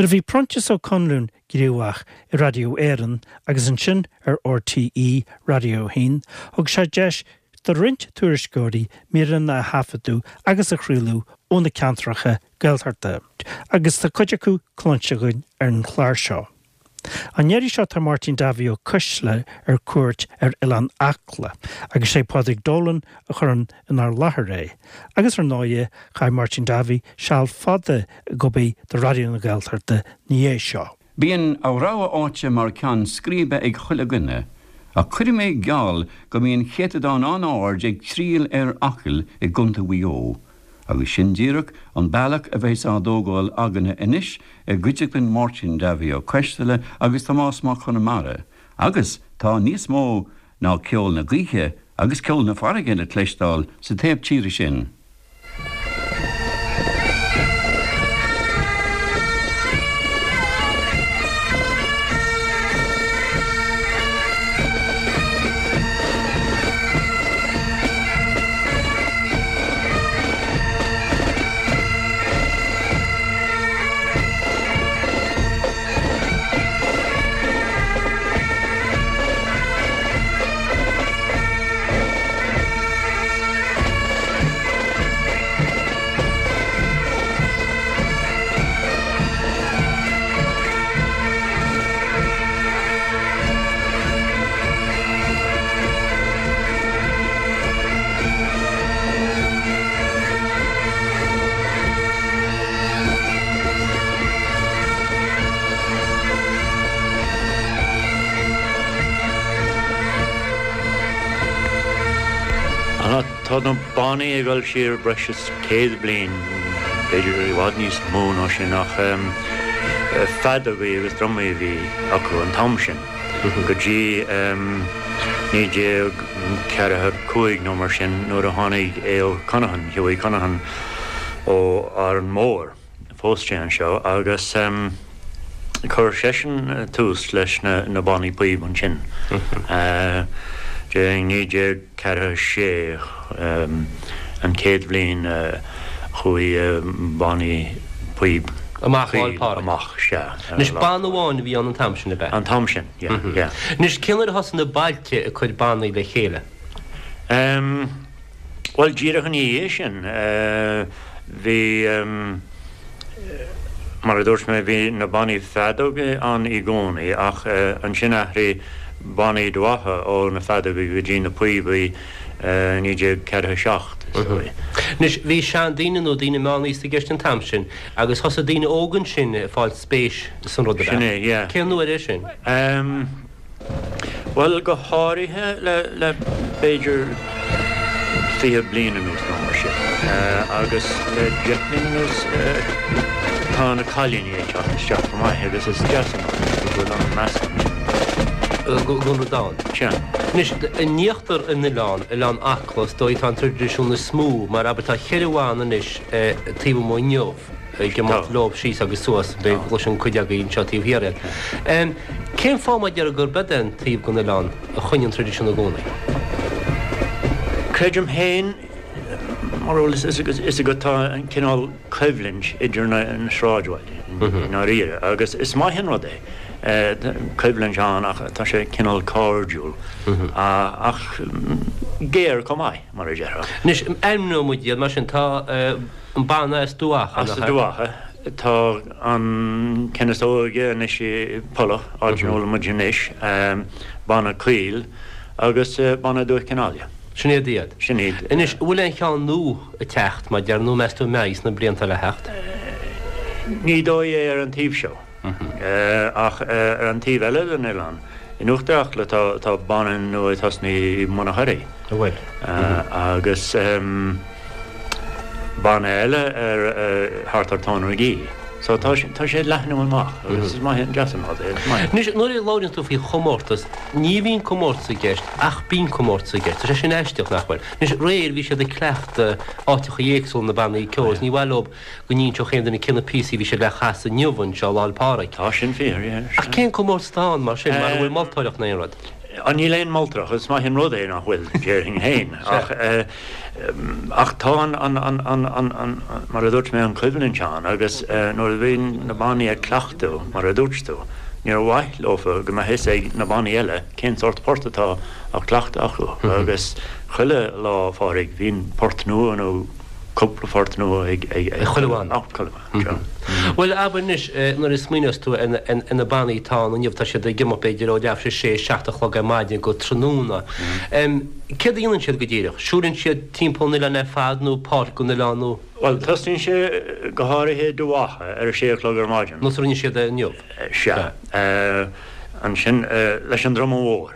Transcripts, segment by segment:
Nuair a bhí Proinsias Ó Conluain gníomhach i Radio Éireann agus ansin ar RTÉ Radio 1, thug sé deis do roinnt tuairisceoirí míreanna a thaifeadadh agus a chraoladh ó na ceantracha Gaeltachta, agus tá cuid acu cluinste againn ar an chlár seo. An iarraidh seo tá Máirtín Davy Ó Coisdealbha ar cuairt ar Oileán Acla agus sé Pádraig Dolan a chuireann inár láthair é. Agus ar ndóighe chaith Máirtín Davy seal fada ag obair do Raidió na Gaeltachta 'na dhiaidh seo. Bíonn a rogha áite mar ceann scríbe ag chuile dhuine, ach cuirfidh mé geall go mbíonn céatadán an-ard ag triall ar Acaill i gContae Mhaigh Eo, agus sin díreach an bealach a bheas á dtógáil againne anois i gcuideachtain Máirtín Davy Ó Coisdealbha agus Tomás Mac Conmara, agus tá níos mó ná ceol na gaoithe agus ceol na farraige le cloisteáil sa taobh tíre sin. Tá na bannaí ag dul siar breis is 100 bliain, b'fhéidir i bhfad níos mó ná sin, ach feadógaí agus drumaí a bhí acu an t-am sin, go dtí 1945 nó mar sin nuair a tháinig Aodh Conaghan, Hughie Conaghan ó Árainn Mhór. Phós sé anseo agus chuir seisean tús leis na bannaí píob ansin. I 1946 an chéad bhliain a chuaigh bannaí píob Amach Lá 'le Pádraig. Amach, sea. Anois banna amháin a bhí ann an t-am sin, ab ea? An t-am sin, yeah, yeah. Anois cén uair a thosaigh na bailte ag cur bannaí le chéile? Bhuel, díreach ina dhiaidh sin, bhí, mar a dúirt mé, bhí na bannaí feadóige ann i gcónaí ach ansin athraigh bannaí Dubh Acha ó na feadógaí go dtí na píobaí i 1947, is dóigh. Anois, bhí seandaoine nó daoine meánaosta i gceist an t-am sin agus thosaigh daoine óga ansin ag fáil spéis san rud, ab ea? Sin é, yeah. Cén uair é sin? Bhuel, go háirithe le b'fhéidir 20 bliain anuas nó mar sin. Agus le 10 mbliana anuas tá na cailíní ag teacht isteach chomh maith agus is deas an rud é go bhfuil an meascán sin ann. Go rud ann. Sea. Anois, in íochtar an oileáin, Oileán Acla, is dóigh, tá an traidisiún is mó, mar abair tá cheithre bhanna anois taobh amuigh inniu. ag imeacht leo síos agus suas, b'fhéidir go gcloiseann cuid agaibh anseo taobh thiar iad. Cén fáth mar a déarfá gurb é an taobh den oileán a choinnigh an traidisiún i gcónaí? Creidim féin, mar a bhfuil fhios agat, tá an cineál coimhlint idir na sráidbhailte i ndáiríre agus is maith an rud é. Coimhlint ann ach tá sé cineál cairdiúil ach géar chomh maith, mar a déarfá. Anois, ainmneoidh muid iad mar sin. Tá. An banna as Dubh Acha, nach ea? As Dubh Acha. Tá an ceann is óige anois i Pollach, áit ina bhfuil muid anois, banna Caol agus banna Dúiche Chionnaile. Sin iad iad. Sin iad. Anois, an bhfuil aon cheann nua ag teacht, mar a déarfá, nó meas tú an mbeidh sna blianta le theacht? Ní dóigh é ar an taobh seo. Ach ar an taobh eile den oileán, in Uachtar Acla, tá banna nua ag tosnú i mBun an Choirí. An bhfuil? Agus banna eile ar thart ar Thóin Magee. So tá sé ag leathnú amach agus is maith an deas an rud é, is maith. Anois, nuair a labhraíonn tú faoi chomórtas, ní bhíonn comórtas i gceist ach bíonn comórtas i gceist. Tá sé sin aisteach, nach bhfuil? Anois, aréir bhí siad ag cleachtadh áiteacha éagsúla na bannaí ceoil is ní mhaith leo go n-inseodh aon duine cé na píosaí a bhí siad le chasadh inniu anseo Lá 'le Pádraig. Tá sin fíor, yeah. Ach cén comórtas atá ann mar sin, mara bhfuil moltóireacht ná aon rud? Níl aon mholtóireacht, is maith an rud é nach bhfuil, déarfainn féin, ach ach tá an, an, an, an, an, an, mar a dúirt mé, an choimhlint ann agus nuair a bhíonn na bannaí ag cleachtadh, mar a dúirt tú, níor mhaith leofa go mbeadh fhios ag na bannaí eile cén sórt port atá á cleachtadh acu agus chuile Lá Phádraig bíonn port nua nó cúpla port nua ag, ag, ag chuile bhanna. Bhuel, abair anois, nuair a smaoineos tú ar na bannaí atá ann inniu, tá siad ag imeacht b'fhéidir ó leathuair tar éis a sé, 7 a chlog ar maidin go tráthnóna. Céard a dhéanann siad go díreach? Siúlann siad timpeall an oileáin ar fad nó páirt den oileán nó? Bhuel, tosnaíonn sé go háirithe i Dumhcha ar a sé a chlog ar maidin. Nós a rinne siad é inniu? Sea. Ansin leis an druma mhór.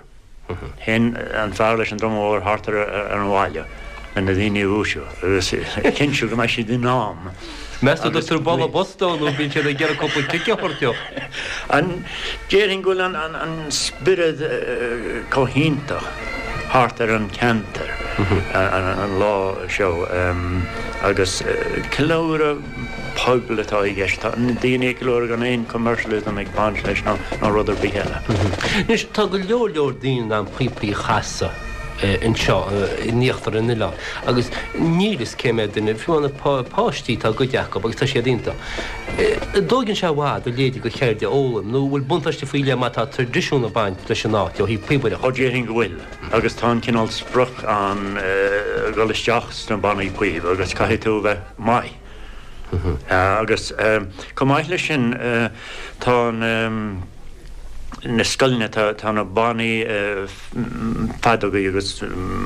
Théann an fear leis an druma mhór thart ar an bhaile le na daoine a dhúisiú agus a chinntiú go mbeidh siad in am. Meas tú an dtugtar bualadh bos dó nó bíonn siad ag iarraidh cúpla cic a thabhairt dó? Déarfainn go bhfuil an spiorad chomh hiontach thart ar an cheantar an lá seo agus ceiliúradh pobail atá i gceist. Tá na daoine ag ceiliúradh gan aon commercialism ag baint leis ná rud ar bith eile. Anois, tá go leor leor daoine in ann píopaí a chasadh anseo in íochtar an oileáin agus níl fhios cé mhéad duine, fiú na páistí, tá a gcuid acu agus tá siad iontach. An dtóigeann sé i bhfad a leithéidí de cheird a fhoghlaim nó bhfuil buntáiste faoi leith má tá traidisiún ag baint leis an áit ó thaobh píobaireachta? Ó déarfainn go bhfuil agus tá an cineál sprioc ann dhul isteach sna bannaí píob agus caithfidh tú a bheith maith. Agus chomh maith leis sin tá na scoileanna, tá na bannaí feadógaí agus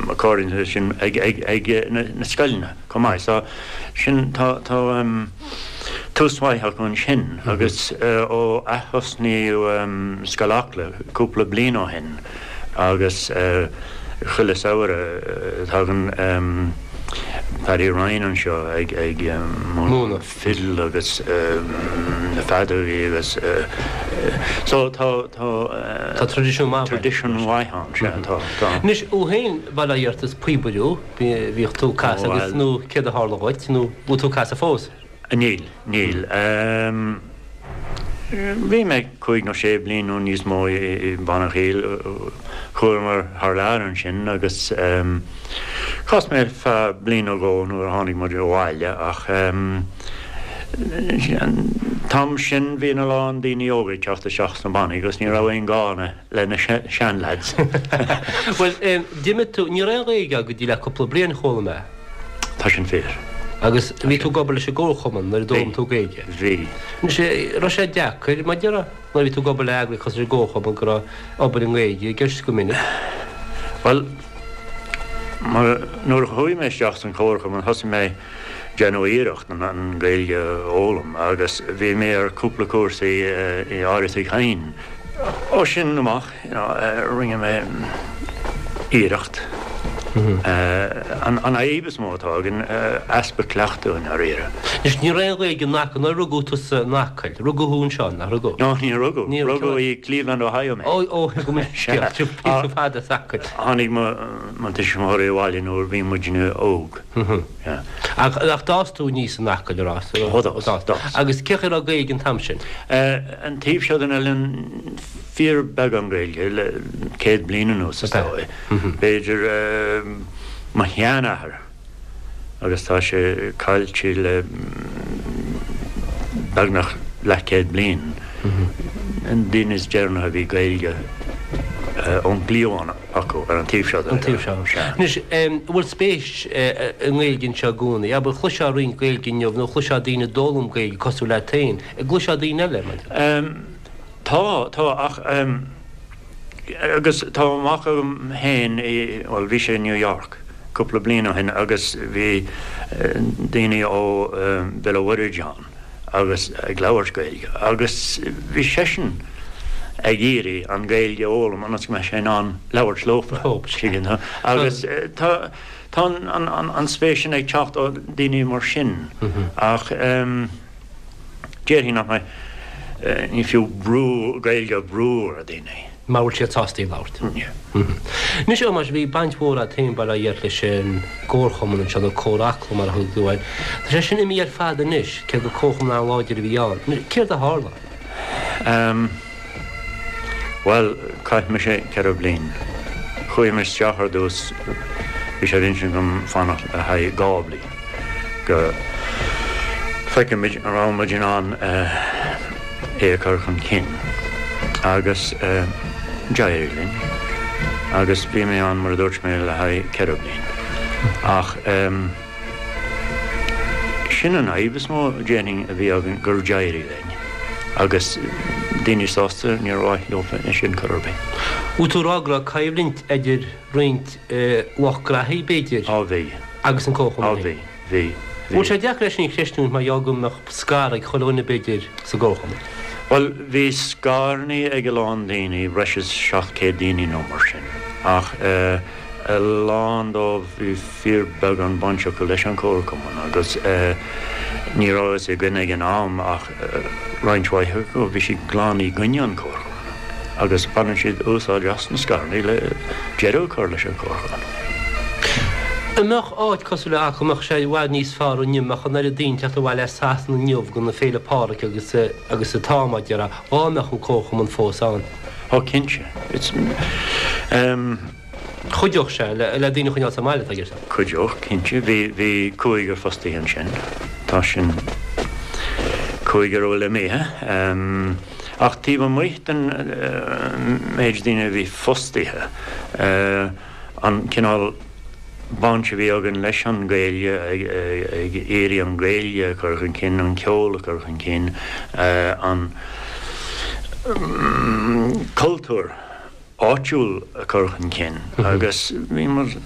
accordions agus sin ag na scoileanna chomh maith. So sin, tá tús maith acu ansin agus ó ath-thosnaíodh Scoil Acla cúpla bliain ó shin, Agus chuile samhradh tagann Paddy Ryan anseo ag múineadh fidil agus na feadógaí agus so tá tá Tá traidisiún maith traidisiún mhaith ann, sea tá tá. Anois thú féin bail ó Dhia ort is píobaire thú, bhíodh tú ag casadh agus nó céard a tharla dhuit nó bhfuil tú ag casadh fós? Níl, níl. Bhí mé cúig nó sé bliain nó níos mó i mBanna Chill. Chuamar thar lear ansin agus chas mé ar feadh bliain nó dhó nuair a tháinig muid abhaile ach an t-am sin bhí a lán daoine óga ag teacht isteach sna bannaí agus ní raibh aon gá le na seanleaids. Bhuel, d'imigh tú, ní raibh aon Ghaeilge agat go dtí le cúpla bliain, chuala mé. Tá sin fíor. Agus bhí tú ag obair leis an gComharchumann nuair a d'fhoghlaim tú Gaeilge? Bhí. Anois, raibh sé deacair, mar déarfá, nuair a bhí tú ag obair le eagraíocht cosúil leis an gComharchumann go raibh obair i nGaeilge i gceist go minic? Bhuel, mar, nuair a chuaigh mé isteach san Chomharchumann thosaigh mé déanamh iarracht an Ghaeilge a fhoghlaim agus bhí mé ar cúpla cúrsaí i Áras Uí Chadhain. Ó sin amach, rinne mé iarracht. An fhadhb is mó atá againn, easpa cleachtadh i ndáiríre. Anois, ní raibh aon Ghaeilge in Acaill, nuair a rugadh tusa in Acaill, rugadh thú anseo, nach rugadh? No, níor rugadh. Rugadh i Cleveland, Ohio mé. Ó, ó, go mbeidh scéal, píosa fada as Acaill. Tháinig mo tuismitheoirí abhaile nuair a bhí muidne óg. Ach d'fhás tú aníos in Acaill, ar fhás? Ó, d'fhás, d'fhás. Agus cén chaoi a raibh Gaeilge an t-am sin? An taobh seo den oileán, fíorbheagán Gaeilge le 100 bliain anuas, is dóigh. B'fhéidir mo sheanathair agus tá sé caillte le beagnach leathchéad bliain, an duine is deireanaí a bhí Gaeilge ón gcliabhán acu ar an taobh seo den oileán. Sea. Anois, an bhfuil spéis i nGaeilge anseo i gcónaí? Abair, chloisfeá roinnt Gaeilge inniu nó chloisfeá daoine ag d'fhoghlaim Gaeilge cosúil leat féin. An gcloisfeá daoine eile, mar. Tá, tá, ach, agus tá mac agam féin i, bhuel, bhí sé i New York cúpla bliain ó shin agus bhí daoine ó Bhéal an Mhuirthead ann agus ag labhairt Gaeilge agus bhí seisean ag iarraidh an Ghaeilge a fhoghlaim ionas go mbeadh sé in ann labhairt leofa, tuigeann tú. Agus tá, tá an spéis sin ag teacht ó daoine mar sin ach. Déarfainn nach mbeidh, ní fiú brú, Gaeilge a bhrú ar dhaoine. Mura bhfuil siad sásta í a labhairt. Anois, a Thomáis, bhí baint mhór agat féin, bail ó Dhia ort, leis an gComharchumann anseo, nó Comhar Acla mar a thug tú air. Tá sé sin imithe ar fad anois, cé gur comharchumann an-láidir a bhí ann. Céard a tharla? Bhuel, chaith mise 4 bliain. Chuaigh mé isteach ar dtús, bhí sé ar intinn agam fanacht le haghaidh 2 bliain go bhfeicfimid an raibh muid in ann é a chur chun cinn. Agus d'éirigh linn. Agus bhí mé ann, mar a dúirt mé, le haghaidh 4 bliain. Ach. Sin an fhadhb is mó, déarfainn, a bhí againn, gur d'éirigh linn agus daoine sásta, níor mhaith leo é sin chor ar bith. Bhfuil tú ag rá go raibh coimhlint idir roinnt lucht graithí, b'fhéidir, Á bhí. agus an Comharchumann Á bhí, bhí, bhí. Bhfuil sé deacair é sin a chreistiúint mar gheall go mbeadh scair ag chuile dhuine, b'fhéidir, sa gComharchumann? Bhuel, bhí scaireanna ag a lán daoine, breis is 700 daoine nó mar sin, ach a lán dóibh, bhí fíorbheagán baint acu leis an Chomharchumann agus ní raibh a fhios againn ag an am ach roinnt mhaith acu, bhí siad glan i gcoinne an Chomharchumainn agus baineann siad úsáid as na scaireanna le deireadh a chur leis an Chomharchumann. An mbeadh áit cosúil le Acaill, an mbeadh sé i bhfad níos fearr inniu, an mbeadh an oiread daoine ag teacht abhaile as Sasana inniu go na Féile Pádraig agus agus atá, mar a déarfá, dhá mbeadh an Comharchumann fós ann? Ó cinnte. It's. Chuideodh sé le daoine a choinneáil sa mbaile, tá a fhios agat. Chuideodh, cinnte. Bhí, bhí cúigear fostaithe ansin. Tá sin cúigear a bhfuil imithe. Ach taobh amuigh den méid daoine a bhí fostaithe, an cineál baint a bhí againn leis an Ghaeilge, ag iarraidh an Ghaeilge a chur chun cinn, an ceol a chur chun cinn, an cultúr. áitiúil a chur chun cinn agus bhí muid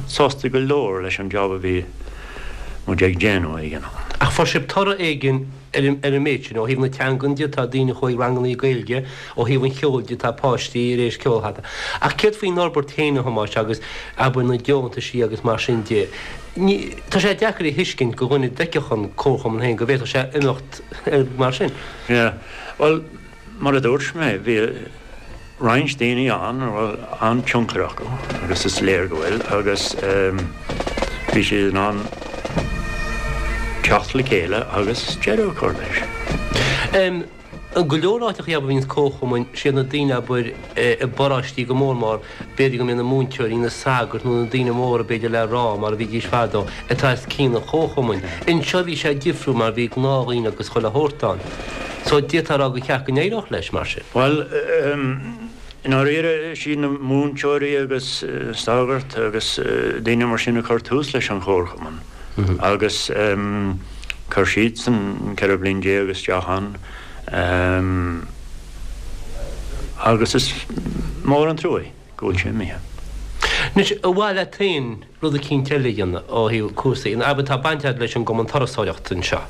sásta go leor leis an jab a bhí muid ag déanamh ag an am. Ach fuair sibh toradh éigin ar an méid sin, ó thaobh na teangan de, tá daoine a chuaigh rangannaí Gaeilge, ó thaobh an cheoil de, tá páistí tar éis ceol a thaifeadadh. Ach céard faoin fhorbairt féin, a Thomáis, agus abair na deontaisí agus mar sin de? Ní, tá sé deacair a thuiscint go dhuine a d'fheicfeadh an Comharchumann féin go bhféadfadh sé imeacht mar sin. Yeah, bhuel, Mar a dúirt mé, bhí roinnt daoine ann a raibh an-tionchar acu, agus is léir go bhfuil, agus bhí siad in ann teacht le chéile agus deireadh a chur leis. I go leor áiteachaí abair a bhíonns comharchumainn, siad na daoine abair i bparóistí go mór mór, b'fhéidir go mbíonn na múinteoirí, na sagairt nó na daoine móra b'fhéidir le rá mar a bhídís fadó, atá os cionn an chomharchumainn. Anseo bhí sé difriúil mar bhí gnáthdhaoine agus chuile shórt ann. So d'fhéadfá a rá gur cheart go n-éireodh leis mar sin. Bhuel, i ndáiríre, is iad na múinteoirí agus sagairt agus daoine mar sin a chuir tús leis an chomharchumann agus chuir siadsan 14 bliain isteach ann agus is mór an trua é go bhfuil sé imithe. Anois, ar mhaith leat féin rud eicínt eile a dhéanamh ó thaobh cúrsaí, abair tá baint agat leis an gCumann Turasóireachta anseo.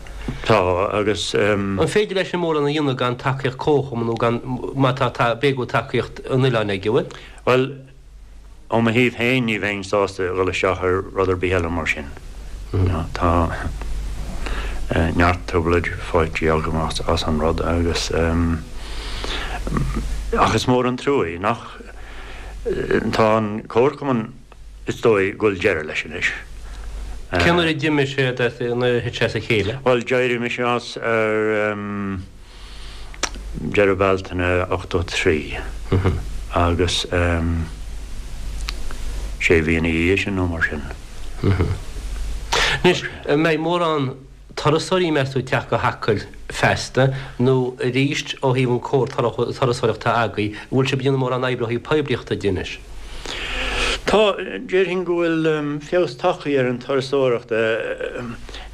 Tá, agus. An féidir leis sin mórán a dhéanamh gan tacaíocht comharchumann nó gan, má tá, tá, b'fhéidir go bhfuil tacaíocht an oileáin aige, an bhfuil? Bhuel, ó mo thaobh féin ní bheinn sásta a dhul isteach ar rud ar bith eile mar sin. Tá neart trioblóid faighte agam as an rud agus, ach is mór an trua é nach, tá an comharchumann, Is dóigh go bhfuil deireadh leis anois. Cén uair a d'imigh sé, nuair a thit sé as a chéile? Bhuel, d'éirigh mise as ar deireadh Bealtaine 83 agus sé mhí ina dhiaidh sin nó mar sin. Anois, an mbeidh mórán turasóirí, meas tú, ag teacht go hAcaill feasta, nó arís ó thaobh an comhar turasóireachta atá agaibh, an bhfuil sibh ag déanamh mórán oibre ó thaobh poiblíochta de anois? Tá, déarfainn go bhfuil feabhas tagtha ar an turasóireacht,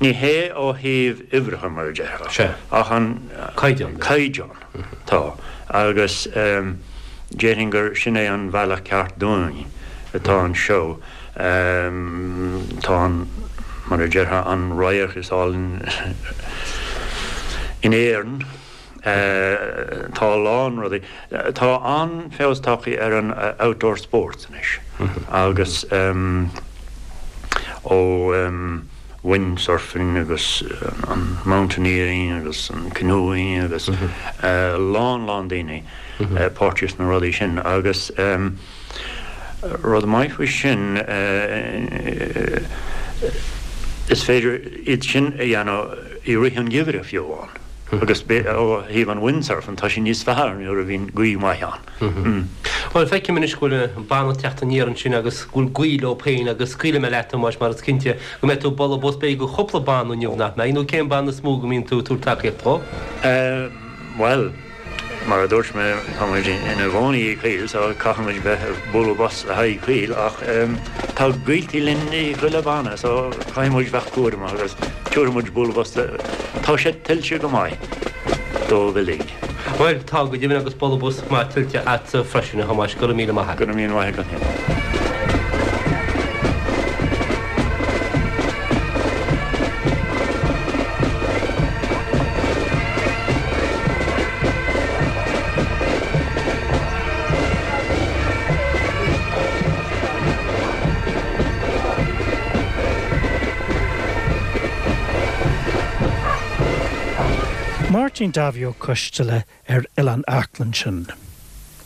ní hé ó thaobh uimhreacha mar a déarfá, ach an caighdeán. Caighdeán, tá, agus déarfainn gur sin é an bhealach ceart dúinn atá anseo. Tá an, mar a déarfá, an radharc is álainn in Éirinn. Tá a lán rudaí. Tá an-fheabhas tagtha ar an outdoor sports anois agus ó windsurfing agus an mountaineering agus an canoeing agus a lán lán daoine páirteach sna rudaí sin agus Rud maith faoi sin, is féidir iad sin a dhéanamh i rith an gheimhridh fiú amháin. Agus ó thaobh an windsurfing, tá sé níos fearr nuair a bhíonn gaoth mhaith ann. Bhuel, feicim anois go bhfuil an banna ag teacht aniar ansin agus go bhfuil gaoth leo féin agus scaoilfidh mé leat, a Thomáis, mar is cinnte go mbeidh tú ag bualadh bos b'fhéidir do chúpla banna inniu, nach mbeidh? Nó cén banna is mó go mbíonn tú ag tabhairt tacaíocht dhó? Bhuel, mar a dúirt mé, tá muid ina gcónaí i gCoill so caithfidh muid bheith ag bualadh bos le haghaidh Coill ach tá gaoltaí linn i chuile bhanna so caithfidh muid bheith cúramach agus tabharfaidh muid bualadh bos le, tá sé tuillte go maith dóibh uilig. Bhuel, tá go deimhin agus bualadh bos maith tuillte a'dsa freisin, a Thomáis, go raibh míle maith a't. Go raibh míle maith agat féin. Máirtín Davy Ó Coisteala ar Oileán Acla ansin.